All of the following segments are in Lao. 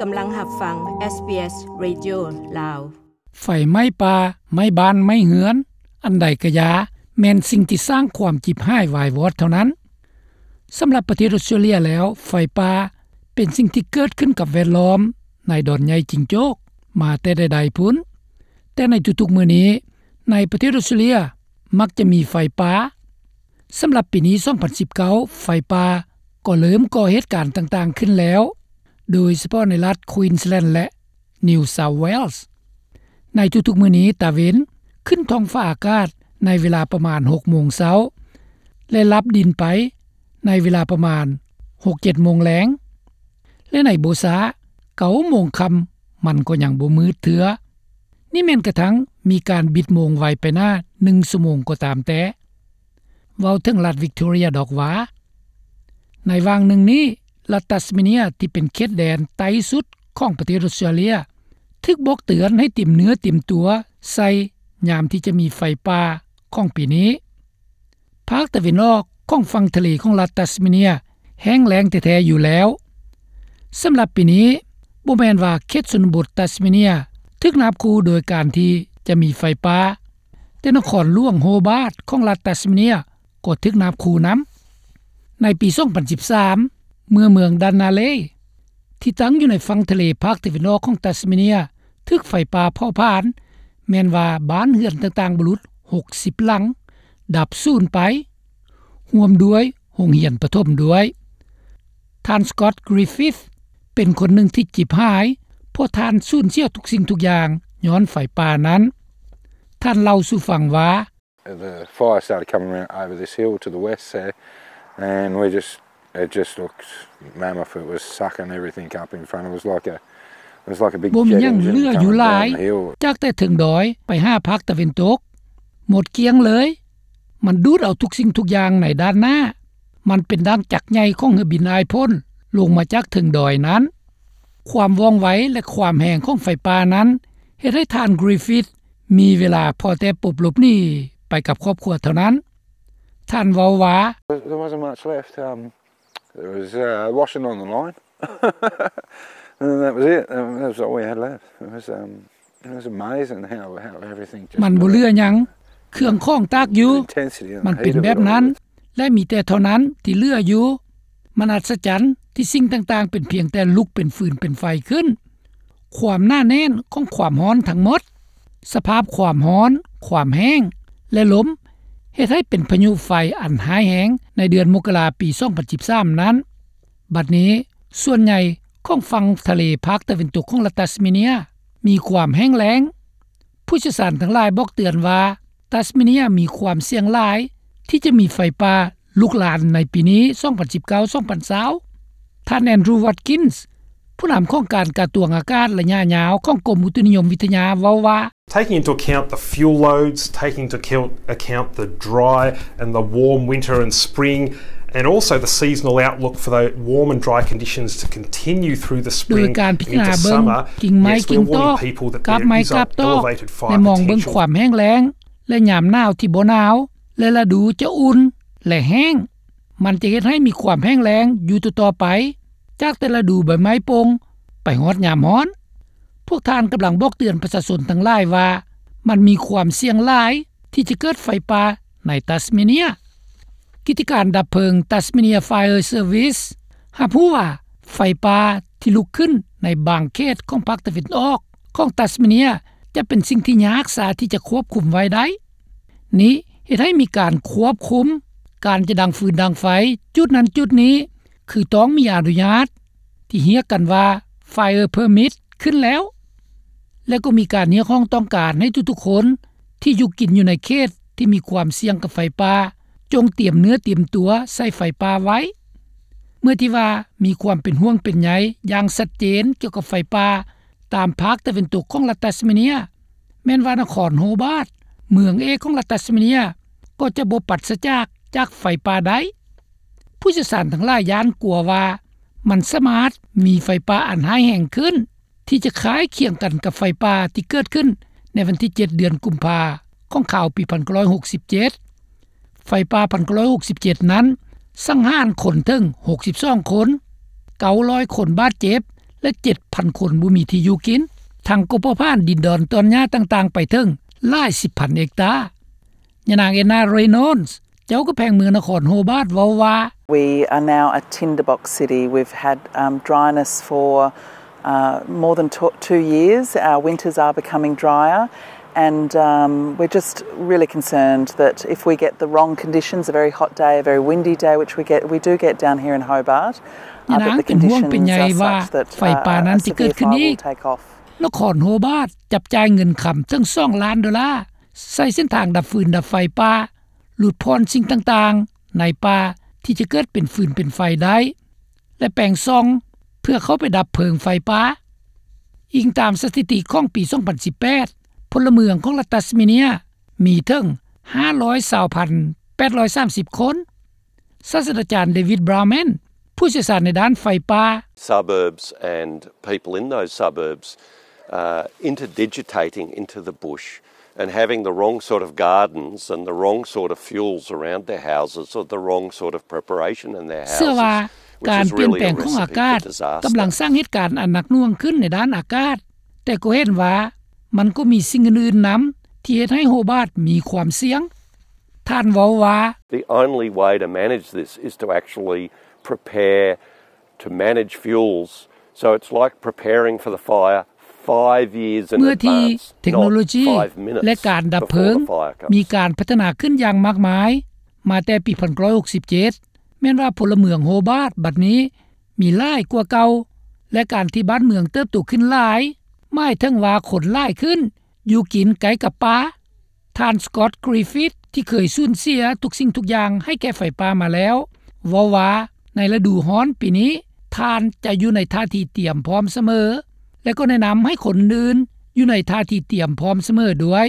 ກຳລັງຮັບຟັງ ເອສບີເອສ ເຣດິໂອ ລາວ. ໄຟໄໝ້ປ່າ, ໄໝ້ບ້ານ, ໄໝ້ເຮືອນ, ອັນໃດກະຢ່າ, ແມ່ນສິ່ງທີ່ສ້າງຄວາມຈິບຫາຍວາຍວອດເທົ່ານັ້ນ. ສຳລັບປະເທດອົດສະຕຣາເລຍແລ້ວ, ໄຟປ່າເປັນສິ່ງທີ່ເກີດຂຶ້ນກັບແວດລ້ອມໃນດອນໃຫຍ່ຈິງໂຈ້ກມາແຕ່ໃດໆພຸ້ນ. ແຕ່ໃນທຸກໆມື້ນີ້, ໃນປະເທດອົດສະຕຣາເລຍມັກຈະມີໄຟປ່າ. ສຳລັບປີນີ້ ສອງພັນສິບເກົ້າ ໄຟປ່າກໍເລີ່ມກໍ່ເຫດການຕ່າງໆຂຶ້ນແລ້ວ, ໂດຍສະເພາະໃນລັດ Queensland ແລະ New South Wales. ໃນທຸກໆມື້ນີ້, ຕາເວັນຂຶ້ນທ້ອງຟ້າອາກາດໃນເວລາປະມານ ຫົກໂມງເຊົ້າ ແລະ ລັບດິນໄປໃນເວລາປະມານ ຫົກເຈັດໂມງແລງ ແລະ ໃນບໍ່ຊ້າ ເກົ້າໂມງຄ່ຳ ມັນກໍຍັງບໍ່ມືດເທື່ອ. ນີ້ແມ່ນກະທັ່ງມີການບິດໂມງໄວໄປໜ້າໜຶ່ງຊົ່ວໂມງກໍຕາມແຕ່. ເວົ້າເຖິງລັດ Victoria ດອກວ່າ, ໃນຫວ່າງໜຶ່ງນີ້, ລັດ Tasmania ທີ່ເປັນເຂດແດນໃຕ້ສຸດຂອງປະເທດອົດສະຕຣາເລຍ ຖືກບອກເຕືອນໃຫ້ຕຽມເນື້ອຕຽມຕົວໃສ່ຍາມທີ່ຈະມີໄຟປ່າຂອງປີນີ້. ພາກຕາເວັນອອກຂອງຝັ່ງທະເລຂອງລັດ Tasmania ແຫ້ງແລ້ງແທ້ໆຢູ່ແລ້ວ. ສຳລັບປີນີ້, ບໍ່ແມ່ນວ່າເຂດຊົນນະບົດ Tasmania ຖືກນາບຂູ່ໂດຍການທີ່ຈະມີໄຟປ່າ, ແຕ່ນະຄອນຫຼວງ Hobart ຂອງລັດ Tasmania ກໍຖືກນາບຂູ່ນຳ. ໃນປີ ສອງພັນສິບສາມ ເມື່ອເມືອງ Dunalay ທີ່ຕັ້ງຢູ່ໃນຝັ່ງທະເລພາກຕາເວັນອອກຂອງ Tasmania ຖືກໄຟປ່າເຜົາຜານ, ແມ່ນວ່າບ້ານເຮືອນຕ່າງໆ ບໍ່ຫຼຸດ ຫົກສິບຫຼັງ ດັບສູນໄປ, ຮ່ວມດ້ວຍໂຮງຮຽນປະຖົມດ້ວຍ. ທ່ານ Scott Griffith ເປັນຄົນໜຶ່ງທີ່ຈິບຫາຍ, ເພາະທ່ານສູນເສຍທຸກສິ່ງທຸກຢ່າງຍ້ອນໄຟປ່ານັ້ນ. ທ່ານເລົ່າສູ່ຟັງວ່າ, The fire started coming around over this hill to the west there, and we just, it just looked mammoth. It was sucking everything up in front. It was like a, it was like a big jet engine coming down the hill. ບໍ່ມີຫຍັງເຫຼືອຢູ່ຫຼາຍ ຈາກແຕ່ເທິງດອຍໄປຫາພາກຕາເວັນຕົກ, ໝົດກ້ຽງເລີຍ. ມັນດູດເອົາທຸກສິ່ງທຸກຢ່າງໃນດ້ານໜ້າ. ມັນເປັນດັ່ງຈັກໃຫຍ່ຂອງເຮືອບິນອ້າຍພົ້ນລົງມາຈາກເທິງດອຍນັ້ນ. ຄວາມວ່ອງໄວ ແລະ ຄວາມແຮງຂອງໄຟປ່ານັ້ນ ເຮັດໃຫ້ທ່ານ Griffith ມີເວລາພໍແຕ່ປົບຫຼົບໜີໄປກັບຄອບຄົວເທົ່ານັ້ນ. ທ່ານເວົ້າວ່າ, There wasn't much left. Um, there was, uh, washing on the line. And that was it. Um, that was all we had left. It was, um, it was amazing how, how everything just ມັນບໍ່ເຫຼືອຫຍັງ, ເຄື່ອງຂອງຕາກຢູ່. ມັນເປັນແບບນັ້ນ ແລະ ມີແຕ່ເທົ່ານັ້ນທີ່ເຫຼືອຢູ່. ມັນອັດສະຈັນທີ່ສິ່ງຕ່າງໆເປັນພຽງແຕ່ລຸກເປັນຟືນເປັນໄຟຂຶ້ນ. ຄວາມໜາແໜ້ນຂອງຄວາມຮ້ອນທັງໝົດ, ສະພາບຄວາມຮ້ອນ, ຄວາມແຫ້ງ ແລະ ລົມ ເຮັດໃຫ້ເປັນພາຍຸໄຟອັນຮ້າຍແຮງໃນເດືອນມົກກະລາປີ ສອງພັນສິບສາມນັ້ນ. ບັດນີ້, ສ່ວນໃຫຍ່ຂອງຝັ່ງທະເລພາກຕາເວັນຕົກຂອງລັດຕັສເມເນຍມີຄວາມແຫ້ງແລ້ງ. ຜູ້ຊ່ຽວຊານທັງຫຼາຍບອກເຕືອນວ່າ ຕັສເມເນຍມີຄວາມສ່ຽງຫຼາຍທີ່ຈະມີໄຟປ່າລຸກລານໃນປີນີ້ ສອງພັນສິບເກົ້າ ສອງພັນຊາວ. ທ່ານ Andrew Watkins ຜູ້ນຳຂອງການກະຊວງອາກາດໄລຍະຍາວຂອງກົມອຸຕຸນິຍົມວິທະຍາເວົ້າວ່າ, Taking into account the fuel loads, taking into account the dry and the warm winter and spring, and also the seasonal outlook for the warm and dry conditions to continue through the spring and into summer. ໂດຍການພິຈາລະນາເບິ່ງກິ່ງໄມ້ກິ່ງຕອກ, ກັບໄມ້ກັບຕອກ ແລະ ມອງເບິ່ງຄວາມແຫ້ງແລ້ງ ແລະ ຍາມໜາວທີ່ບໍ່ໜາວ ແລະ ລະດູຈະອຸ່ນ ແລະ ແຫ້ງ. ມັນຈະເຮັດໃຫ້ມີຄວາມແຫ້ງແລ້ງຢູ່ຕໍ່ໆໄປ, ຈາກແຕ່ລະດູໃບໄມ້ປົ່ງໄປຮອດຍາມຮ້ອນ. ພວກທ່ານກຳລັງບອກເຕືອນປະຊາຊົນທັງຫຼາຍວ່າ ມັນມີຄວາມສ່ຽງຫຼາຍທີ່ຈະເກີດໄຟປ່າໃນຕັສເມເນຍ. ກິດຈະການດັບເພີງ Tasmania Fire Service ຮັບຮູ້ວ່າ ໄຟປ່າທີ່ລຸກຂຶ້ນໃນບາງເຂດຂອງພາກຕາເວັນອອກຂອງຕັສເມເນຍ ຈະເປັນສິ່ງທີ່ຍາກຊາທີ່ຈະຄວບຄຸມໄວ້ໄດ້. ນີ້ເຮັດໃຫ້ມີການຄວບຄຸມການຈະດັງຟືນດັງໄຟຈຸດນັ້ນຈຸດນີ້ ຄືຕ້ອງມີອະນຸຍາດທີ່ຮຽກກັນວ່າ Fire Permit ຂຶ້ນແລ້ວ ແລະ ກໍມີການຮຽກຮ້ອງຕ້ອງການໃຫ້ທຸກໆຄົນທີ່ຢູ່ກິນຢູ່ໃນເຂດທີ່ມີຄວາມສ່ຽງກັບໄຟປ່າ ຈົ່ງຕຽມເນື້ອຕຽມຕົວໃສ່ໄຟປ່າໄວ້. ເມື່ອທີ່ວ່າມີຄວາມເປັນຫ່ວງເປັນໃຍຢ່າງຊັດເຈນກ່ຽວກັບໄຟປ່າຕາມພາກຕາເວັນຕົກຂອງລັດຕັສເມເນຍ ແມ່ນວ່ານະຄອນໂຮບາດ ເມືອງເອກຂອງລັດຕັສເມເນຍ ກໍຈະບໍ່ປັດສະຈາກຈາກໄຟປ່າໄດ້. ຜູ້ຊ່ຽວຊານທັງຫຼາຍຢ້ານກົວວ່າ ມັນສາມາດມີໄຟປ່າອັນຮ້າຍແຮງຂຶ້ນ ທີ່ຈະຄ້າຍຄຽງກັນກັບໄຟປ່າທີ່ເກີດຂຶ້ນໃນວັນທີເຈັດ ເດືອນກຸມພາຂອງຄາວປີພັນເກົ້າຮ້ອຍຫົກສິບເຈັດ. ໄຟປ່າພັນເກົ້າຮ້ອຍຫົກສິບເຈັດນັ້ນ ສັງຫານຄົນເຖິງຫົກສິບສອງຄົນ, ເກົ້າຮ້ອຍຄົນບາດເຈັບ ແລະ ເຈັດພັນຄົນບໍ່ມີທີ່ຢູ່ກິນ, ທັງກໍເຜົາຜານດິນດອນຕອນຫຍ້າຕ່າງໆໄປເຖິງຫຼາຍສິບພັນເຮັກຕາ. ຍານາງ Anna Reynolds ເຈົ້າແຂວງເມືອງນະຄອນໂຮບາດເວົ້າວ່າ We are now a tinderbox city. We've had um, dryness for uh, more than t- two years. Our winters are becoming drier. And um, we're just really concerned that if we get the wrong conditions, a very hot day, a very windy day, which we get, we do get down here in Hobart, ຍານາງເປັນຫ່ວງເປັນໃຍວ່າໄຟປ່ານັ້ນຈະເກີດຂຶ້ນອີກ. ນະຄອນໂຮບາດຈັບຈ່າຍເງິນຄຳເຖິງສອງລ້ານໂດລາ ໃສ່ເສັ້ນທາງດັບຟືນດັບໄຟປ່າ, ຫຼຸດຜ່ອນສິ່ງຕ່າງໆໃນປ່າທີ່ຈະເກີດເປັນຟືນເປັນໄຟໄດ້ ແລະ ແປງຊ່ອງເພື່ອເຂົ້າໄປດັບເພີງໄຟປ່າ. ອີງຕາມສະຖິຕິຂອງປີສອງພັນສິບແປດ ພົນລະເມືອງຂອງລັດຕັດສະເມເນຍມີເຖິງຫ້າຮ້ອຍຊາວພັນແປດຮ້ອຍສາມສິບຄົນ. ສາດສະດາຈານ David Brownman ຜູ້ຊ່ຽວຊານໃນດ້ານໄຟປ່າ Suburbs and people in those suburbs uh, interdigitating into the bush and having the wrong sort of gardens and the wrong sort of fuels around their houses or the wrong sort of preparation in their houses. ເຊື່ອວ່າການປ່ຽນແປງຂອງອາກາດກຳລັງສ້າງເຫດການອັນໜັກໜ່ວງຂຶ້ນໃນດ້ານອາກາດ, ແຕ່ກໍເຫັນວ່າມັນກໍມີສິ່ງອື່ນໆນຳທີ່ເຮັດໃຫ້ໂຮບາດມີຄວາມສ່ຽງ. ທ່ານເວົ້າວ່າ The only way to manage this is to actually prepare to manage fuels. So it's like preparing for the fire five years in advance, not five minutes before the fire comes. ເມື່ອທີ່ເທັກໂນໂລຢີ ແລະ ການດັບເພີງມີການພັດທະນາຂຶ້ນຢ່າງມາກມາຍມາແຕ່ປີໜຶ່ງພັນເກົ້າຮ້ອຍຫົກສິບເຈັດ ແມ່ນວ່າພົນລະເມືອງໂຮບາດບັດນີ້ມີຫຼາຍກວ່າເກົ່າ ແລະ ການທີ່ບ້ານເມືອງເຕີບໂຕຂຶ້ນຫຼາຍ ໝາຍເຖິງວ່າຄົນຫຼາຍຂຶ້ນ ຢູ່ກິນໃກ້ກັບປ່າ. ທ່ານ Scott Griffith ທີ່ເຄີຍສູນເສຍທຸກສິ່ງທຸກຢ່າງໃຫ້ແກ່ໄຟປ່າມາແລ້ວ ເວົ້າວ່າໃນລະດູຮ້ອນປີນີ້ ທ່ານຈະຢູ່ໃນທ່າທີ່ຕຽມພ້ອມສະເໝີ ແລະ ກໍແນະນຳໃຫ້ຄົນອື່ນຢູ່ໃນທ່າທີ່ຕຽມພ້ອມສະເໝີດ້ວຍ.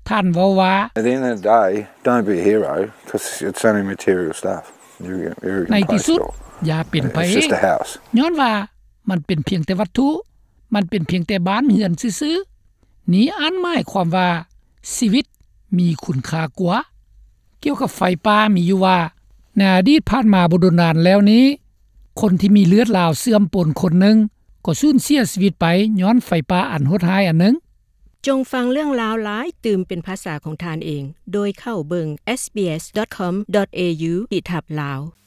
ທ່ານເວົ້າວ່າ At the end of the day, don't be a hero, 'cause it's only material stuff. You, you can ໃນທີ່ສຸດ replace it all. ຢ່າເປັນພະເອກ It's just a house. ຍ້ອນວ່າມັນເປັນພຽງແຕ່ວັດຖຸ, ມັນເປັນພຽງແຕ່ບ້ານເຮືອນຊື່ໆ. ນີ້ອັນໝາຍຄວາມວ່າຊີວິດມີຄຸນຄ່າກວ່າ. ກ່ຽວກັບໄຟປ່າມີຢູ່ວ່າ ໃນອະດີດຜ່ານມາບໍ່ດົນນານແລ້ວນີ້ ຄົນທີ່ມີເລືອດລາວເຊື່ອມປົນຄົນໜຶ່ງ ກໍສູນເສຍຊີວິດໄປຍ້ອນໄຟປ່າອັນໂຫດຮ້າຍອັນໜຶ່ງ. ຈົ່ງຟັງເລື່ອງລາວຫຼາຍຕື່ມເປັນພາສາຂອງທ່ານເອງ ໂດຍເຂົ້າເບິ່ງ sbs.com.au/lawrok